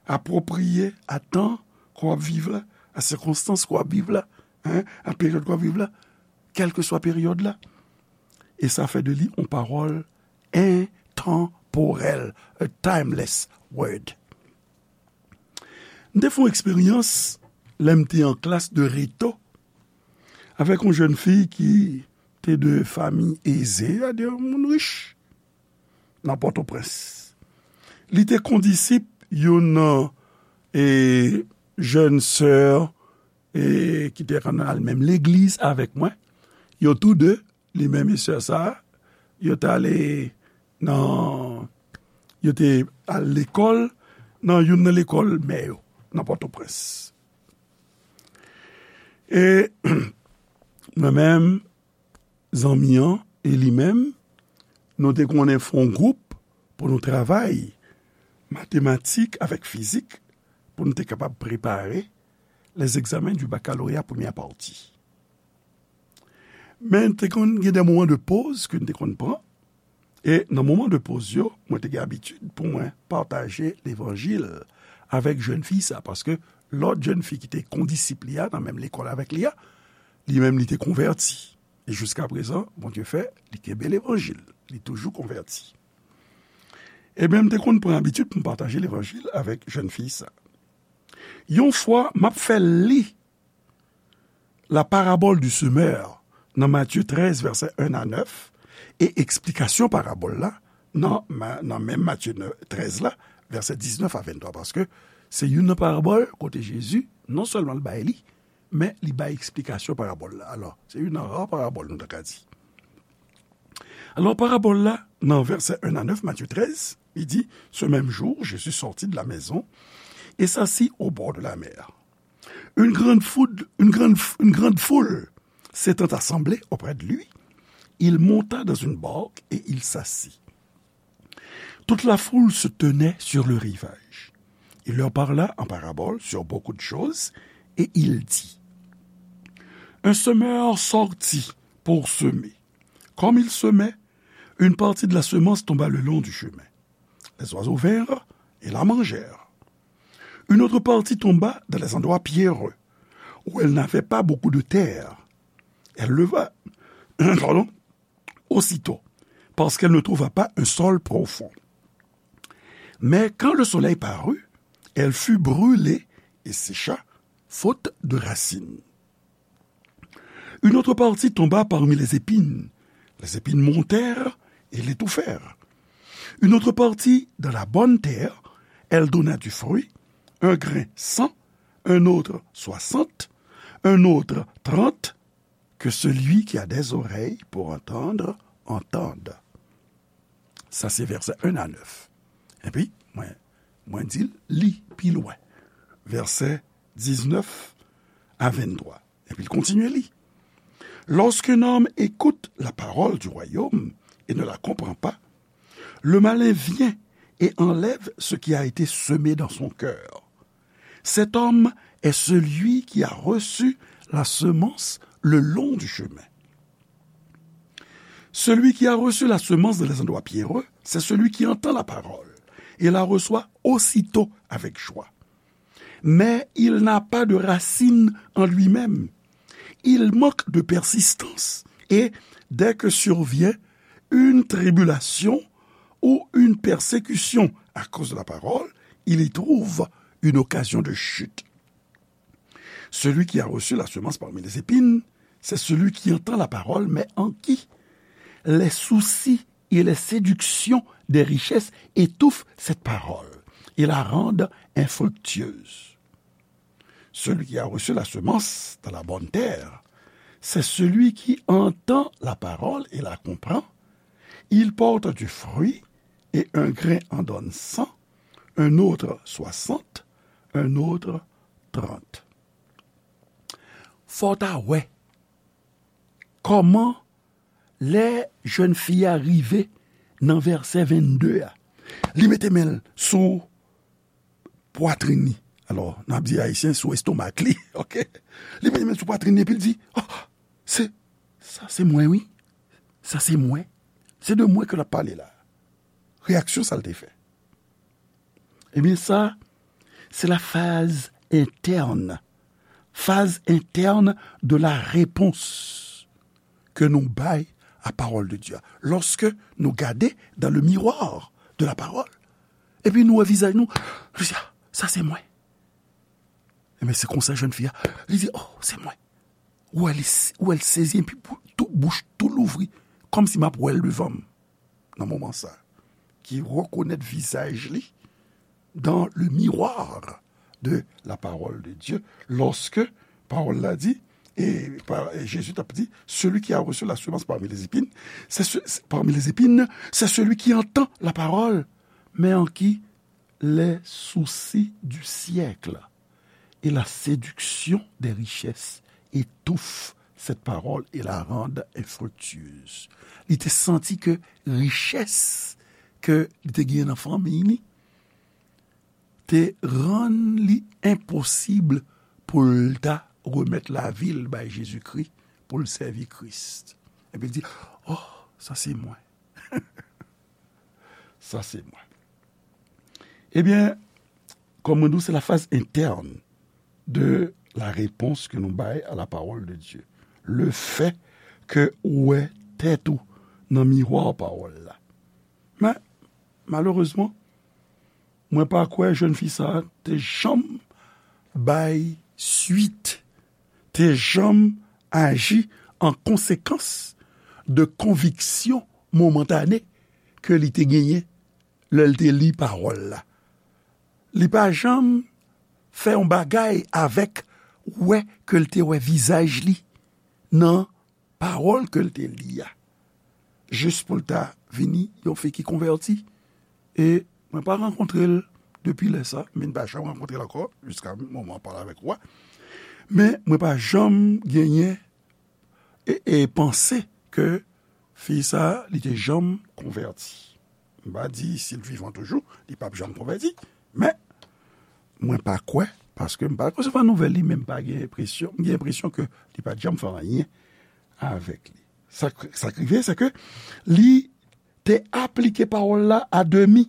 apwopriye a tan ke w ap viv la, a sikonstans ke w ap viv la, en, a peryòd ke w ap viv la, kèlkeswa peryòd la. E sa fè de li yon pawòl entanporèl, a timeless word. M te fè yon eksperyans lè m te an klas de reto avèk yon jèn fi ki te de fanmi eze, sètadi yon moun rich, nan Pòtoprens. Li te kondisip youn nan, e, jèn sè, e, ki te konn al menm legliz avèk mwen. Yo tou de, li menm e sè sa, yo t ale nan, yo te al lekòl nan youn nan lekòl mè yo, nan Pòtoprens. E mwen menm, zanmi an e li menm, nou te konnen fè yon gwoup pou nou travay matematik avèk fizik pou nou te kapab prepare les examens du baccalauréat première partie. Men te konn gen de moman de poz ke n te konn pran. E nan moman de poz yo, mwen te gen abitid pou mwen pataje levanjil avèk jèn fi sa, paske lòt jèn fi ki te kondisip li a, nan menm lekòl avèk li a, li menm li te konvèti. E jiska prezan, Bondye fè, li kenbe levanjil. Li toujou konvèti. Ebyen, m te konn pran abitid pou m pataje levanjil avèk jèn fi sa. Yon fwa, m ap fè l li la parabole du semeur nan Matye trèz, vèsè en a nèf, e eksplikasyon parabòl la nan, nan menm Matye trèz la, vèsè diznèf a venntwa, paske se youn nan parabòl kote Jezi, non sèlman l bay li, men li bay eksplikasyon parabòl la. Alò, se youn nan ra parabòl nou ta ka di. Alò, parabòl la, nan vèsè en a nèf, Matye trèz, li di, ce même jour, Jésus sortit de la maison et s'assit au bord de la mer. Une grande foule, une grande, une grande foule s'étant assemblée auprès de lui, il monta dans une barque et il s'assit. Toute la foule se tenait sur le rivage. Il leur parla en parabole sur beaucoup de choses, et il dit : Un semeur sortit pour semer. Comme il semait, une partie de la semence tomba le long du chemin. Les oiseaux vinrent et la mangèrent. Une autre partie tomba dans les endroits pierreux, où elle n'avait pas beaucoup de terre. Elle leva, pardon, aussitôt, parce qu'elle ne trouva pas un sol profond. Mais quand le soleil parut, elle fut brûlée et sécha, faute de racines. Une autre partie tomba parmi les épines. Les épines montèrent et l'étouffèrent. Une autre partie dans la bonne terre, elle donna du fruit, un grain cent, un autre soixante, un autre trente. Que celui qui a des oreilles pour entendre, entende. Sa se vèsè en a nèf. Epi, mwen, mwen di l, li pi lwen. Vèsè diznèf a venntwa. Epi l kontinye li. Lorsqu'un homme écoute la parole du royaume et ne la comprend pas, le malin vient et enlève ce qui a été semé dans son cœur. Cet homme est celui qui a reçu la semence le long du chemin. Celui qui a reçu la semence dans les endroits pierreux, c'est celui qui entend la parole et la reçoit aussitôt avec joie. Mais il n'a pas de racine en lui-même. Il manque de persistance et, dès que survient une tribulation ou une persécution à cause de la parole, il y trouve une occasion de chute. Celui qui a reçu la semence parmi les épines, c'est celui qui entend la parole, mais en qui les soucis et les séductions des richesses étouffent cette parole et la rendent infructueuse. Celui qui a reçu la semence dans la bonne terre, c'est celui qui entend la parole et la comprend. Il porte du fruit, et un grain en donne cent, un autre soixante, un autre trente. Fò w ta wè kòman lè jèn fi a rive nan vèsè vennde a, li mete men l sou pwatrin li. Alò, n ap di ayisyen sou estomak li, oke? Li mete men l sou pwatrin li epi l di, oh, se, sa se mwen, wi. Sa se mwen. Se de mwen ke l ap pale la. Reyaksyon sa l te fè. Ebyen, sa, se la phase interne. Phase interne de la réponse ke nou bay a pawòl de Dye a. Lòske nou gade dans le miroir de la parole, epi nou wè vizaj nou, nou di, ah, sa se mwen. Ebyen, se konsa jèn fi a, li di, oh, se mwen. Ou wè li, ou wè l sezi, epi pou, tou, bouch tou louvri, kòmsi m ap wè l devan m. Nan moman sa, ki rekonèt vizaj li dans le miroir de la parole de Dieu, lòske pawòl la di, e pa, e Jezi t ap di, celui qui a reçu la semence parmi les épines, c'est ce, c'est, parmi les épines, c'est celui qui entend la parole, mais en qui les soucis du siècle et la séduction des richesses étouffent cette parole et la rendent infructueuse. Li te santi ke richès ke li te genyen nan fanmi li te rann li enposib pou l ta remèt lavi l bay Jezikri, pou l sèvi Kris. Epi l di, oh, sa se mwen. Sa se mwen. Ebyen, kòm mwen di w, se la phase interne de la réponse ke nou bay a la parole de Dieu. Le fait ke ou wè tèt ou nan miwa pawòl la. Men, malerezman, mwen pa kwè jèn fi sa a te janm bay swit, te janm aji an konsekans de konviksyon momantane ke li te genyen lè l te li pawòl la. Li pa janm fè yon bagay avèk wè ke l te wè vizaj li nan pawòl ke l te li a. Jis pou l ta vini yon fi ki konvèti. E mwen pa rankontre l depi lè sa, men m pa janm rankontre l ankò, jiska moman m ap pale avèk ou a. Men mwen pa janm genyen e, e panse ke fi sa a, li te janm konvèti. M pa di si l vivan toujou, li p ap janm konvèti. Men, mwen pa kwè, paske m pa resevwa nouvèl li, men m pa gen enpresyon, m gen enpresyon ke li pa t janm fè anyen avèk li. Sa k, sa k rive, se ke li te aplike pawòl la a demi.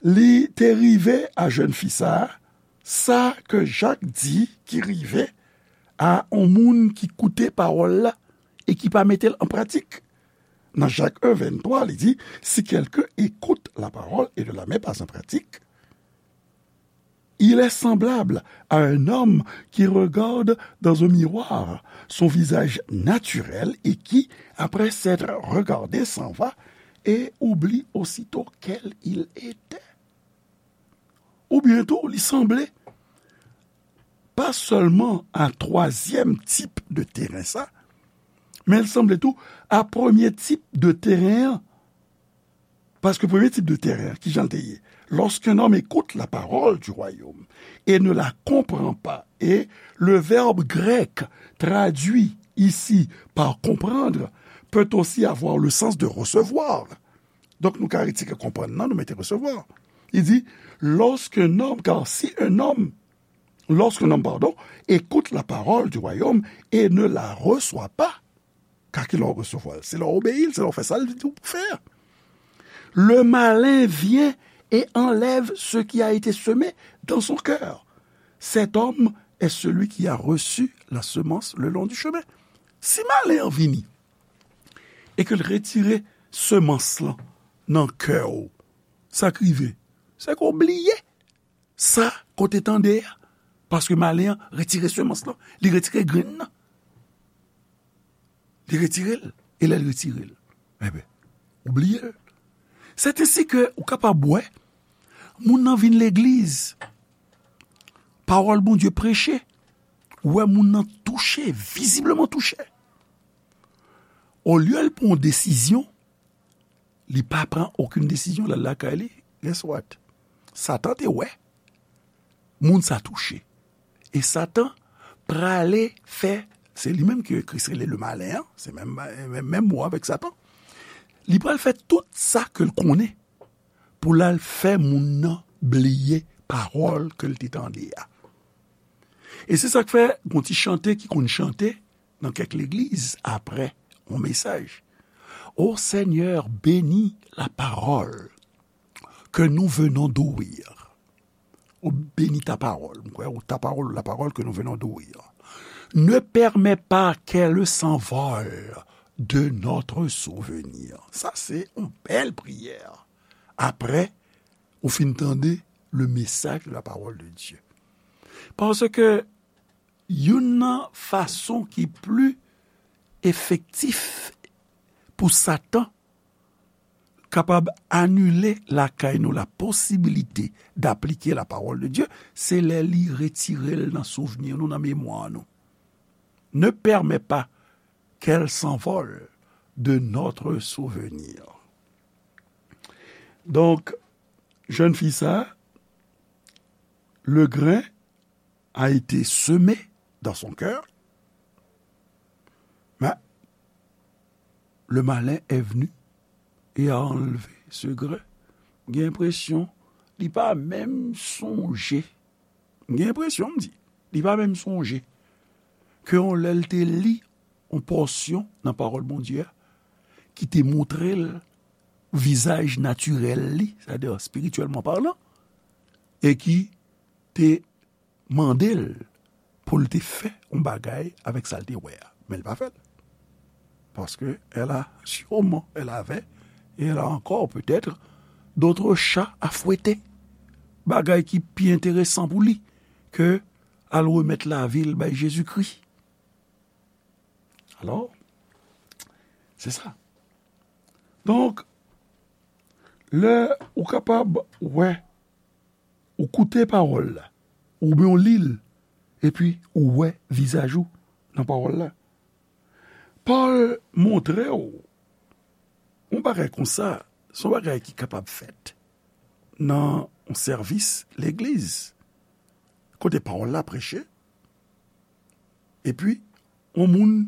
Li te rive a jèn fi sa a, sa ke Jak di ki rive a yon moun ki koute pawòl la e ki pa mete l an pratik. Nan Jak en venntwa, li di, si quelqu'un écoute la parole et ne la met pas en pratique, il est semblable à un homme qui regarde dans un miroir son visage naturel et qui, après s'être regardé, s'en va et oublie aussitôt quel il était. Oubyen tou, li sanble pa sèlman a twazyèm tip de teren sa, men l sanble tou a premye tip de teren an. Paske premye tip de teren an, ki jan l te ye? Lorsqu'un homme écoute la parole du royaume et ne la comprend pas, et le verbe grec traduit ici par comprendre peut aussi avoir le sens de recevoir. Donk, nou ka retire konprann nan, nou mete resevwa. Li di, lorsqu'un homme, car si un homme, lorsqu'un homme, pardon, écoute la parole du royaume et ne la reçoit pas, ka ki lè w resevwa l? Se lè w obeyi l, se lè w fè sa l di w pou fè a. Le malin vient et enlève ce qui a été semé dans son cœur. Cet homme est celui qui a reçu la semence le long du chemin. Si malen an vini e ke l retire semans lan nan kè w, sa k rive, se ke w bliye sa ke w te tande a. Paske malen an retire semans lan, li retire grenn nan. Li retire l. E lè l retire l, enben, ou bliye l. Sètensi ke ou kapab wè, moun nan vin legliz, pawòl Bondye preche, ou wè moun nan touche, vizibleman touche. Olye l pran yon desizyon, li pa pran okenn desizyon, l al lakay li, guess what? Satan te wè moun sa touche. E Satan prale fè, se li menm ke Kris rele le malin an, se menm, menm, menm mo avèk Satan. Li pral fè tout sa ke l konnen pou l al fè moun nan bliye pawòl ke l te tande a. E se sa k fè gon ti chante ki konn chante nan kèk legliz apre yon mesaj. Ô Seigneur, bénis la parole que nous venons d'ouïr. Ou bénis ta parole. Mwen kwè, ou ta parole, la parole que nous venons d'ouïr. Ne permets pas qu'elle s'envole de notre souvenir. Sa se yon bèl priyè. Apre ou fin tande le message de la parole de Dieu. Paske youn nan fason ki pli efektif pou Satan kapab anile lakay nou la posibilite d'aplike la parole de Dieu, se lè li retire l nan souvni nou, nan memwa nou. Ne permets pas qu'elle s'envole de notre souvenir. Donk, jèn fi sa, le grain a été semé dans son cœur, mais le malin est venu et a enlevé ce grain. M gen enpresyon li pa menm sonje. M gen enpresyon, m di, li pa menm sonje ke yon lè l te li yon pòsyon nan pawòl Bondye a ki te montre l vizaj natirèl li, sètadi espirityèlman palan, e ki te mande l pou l te fè yon bagay avèk sa l te wè a. Men l pa fè l. Parce que elle a sûrement, elle avait, et elle a encore peut-être d'autres chats à fouetter. Bagay ki pi enteresan pou li ke al remèt lavi l bay Jezikri. Alò, se sa. Donk, lè ou kapab wè, ou koute pawòl la, oubyen ou li l, epi ou wè vizaj ou nan pawòl la. Pòl montre w yon bagay konsa, se yon bagay ki kapab fèt nan yon sèvis legliz, kote pawòl la preche, epi yon moun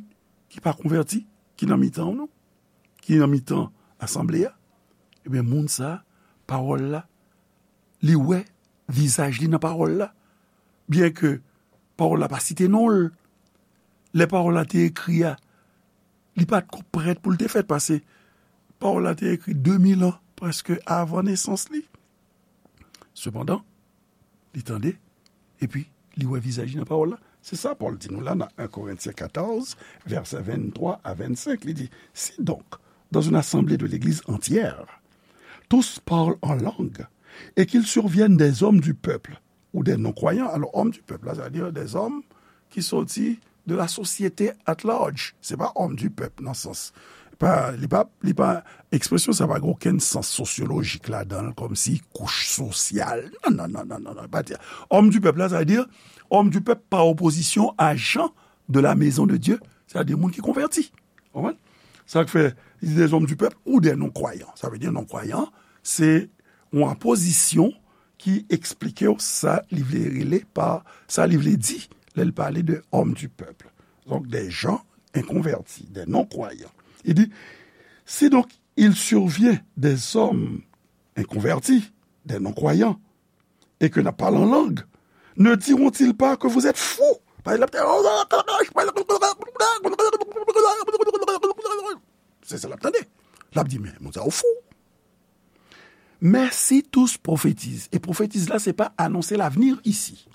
ki pa konvèti, ki nan mitan w, non, ki nan mitan asanble a, Ebyen, moun sa, pawòl la, li wè vizaj li nan pawòl la. Byenke pawòl la pa site non l, lè pawòl la te ekri a, li pa t ko prèt pou l te fèt, paske pawòl la te ekri de mil an, prèske avan nesans li. Sepandan, li tande, epi li wè vizaj li nan pawòl la. Se sa Pòl di nou la nan en Korentyen katòz, vèsè venntwa a vennsenk. Li di, Si donc, dans une assemblée de l'Église entière, tous parlent en langue, et qu'il survienne des hommes du peuple ou des non-croyants. Alò, homme du peuple la, sa vle di des hommes ki soti de la société at large. Se pa homme du peuple nan sans. Pa, li pa, li pa, ekspresyon sa pa gen okenn sans sosyolojik ladan l, kòmsi kouch sosyal. Non, non, non, non, non, non, pa di. Homme du peuple la, sa vle di homme du peuple pa opozisyon a gens de la maison de Dieu, sa vle di moun ki konvèti. Konprann? Sa k fè, li di des hommes du peuple ou des non-croyants. Sa vle di non-croyant, se yon apozisyon ki eksplike w sa li vle rele pa, sa li vle di lè l pale de homme du peuple. Donc, des gens inconvertis, des non-croyants. Il dit, Si donc il survient des hommes inconvertis, des non-croyants, et que n ap pale an lang, ne diront-ils pas que vous êtes fous? Se sa l ap tande. L ap di, men, moun sa yo fou. Mais si tous prophétisent, et prophétiser la, c'est pas annoncer l'avenir ici.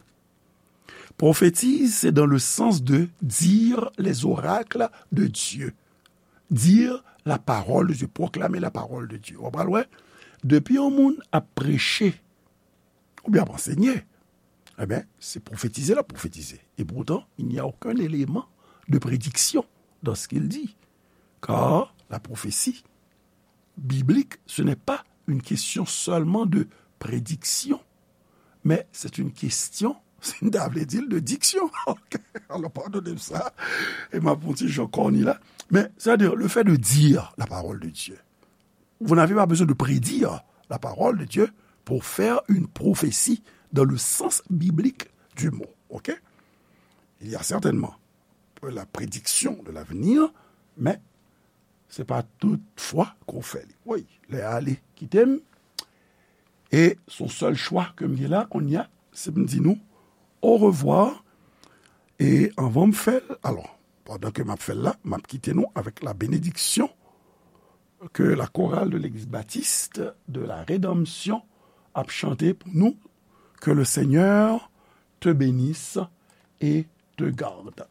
Prophétiser, c'est dans le sens de dire les oracles de Dieu. Dire la parole de Dieu, proclamer la parole de Dieu. Ou pral wè, depi yon moun ap preche, oubyen ap ansenye, ebyen, se pwofetize l ap pwofetize. Et pourtant, il n'y a aucun élément de prédiction dans ce qu'il dit. Car la prophétie biblique, ce n'est pas une question seulement de prédiction, mais c'est une question, sa vle di l, de diction. Ok, alò, padone m sa. E m ap yon ti jan kòni la. Men, c'est-à-dire, le fait de dire la parole de Dieu, vous n'avez pas besoin de prédire la parole de Dieu pour faire une prophétie dans le sens biblique du mot. Ok? Il y a certainement la prédiction de l'avenir, mais c'est pas toute fois qu'on fait li. Wi, lè a ale kite m. E se yon sèl chwa ke m gen la, kounye a, se m di nou au revoir. E anvan m fè l, alò, pandan ke m ap fè l la, m ap kite nou avèk la bénédiction que la chorale de l'église baptiste de la Rédemption ap chante pou nou, Que le Seigneur te bénisse et te garde.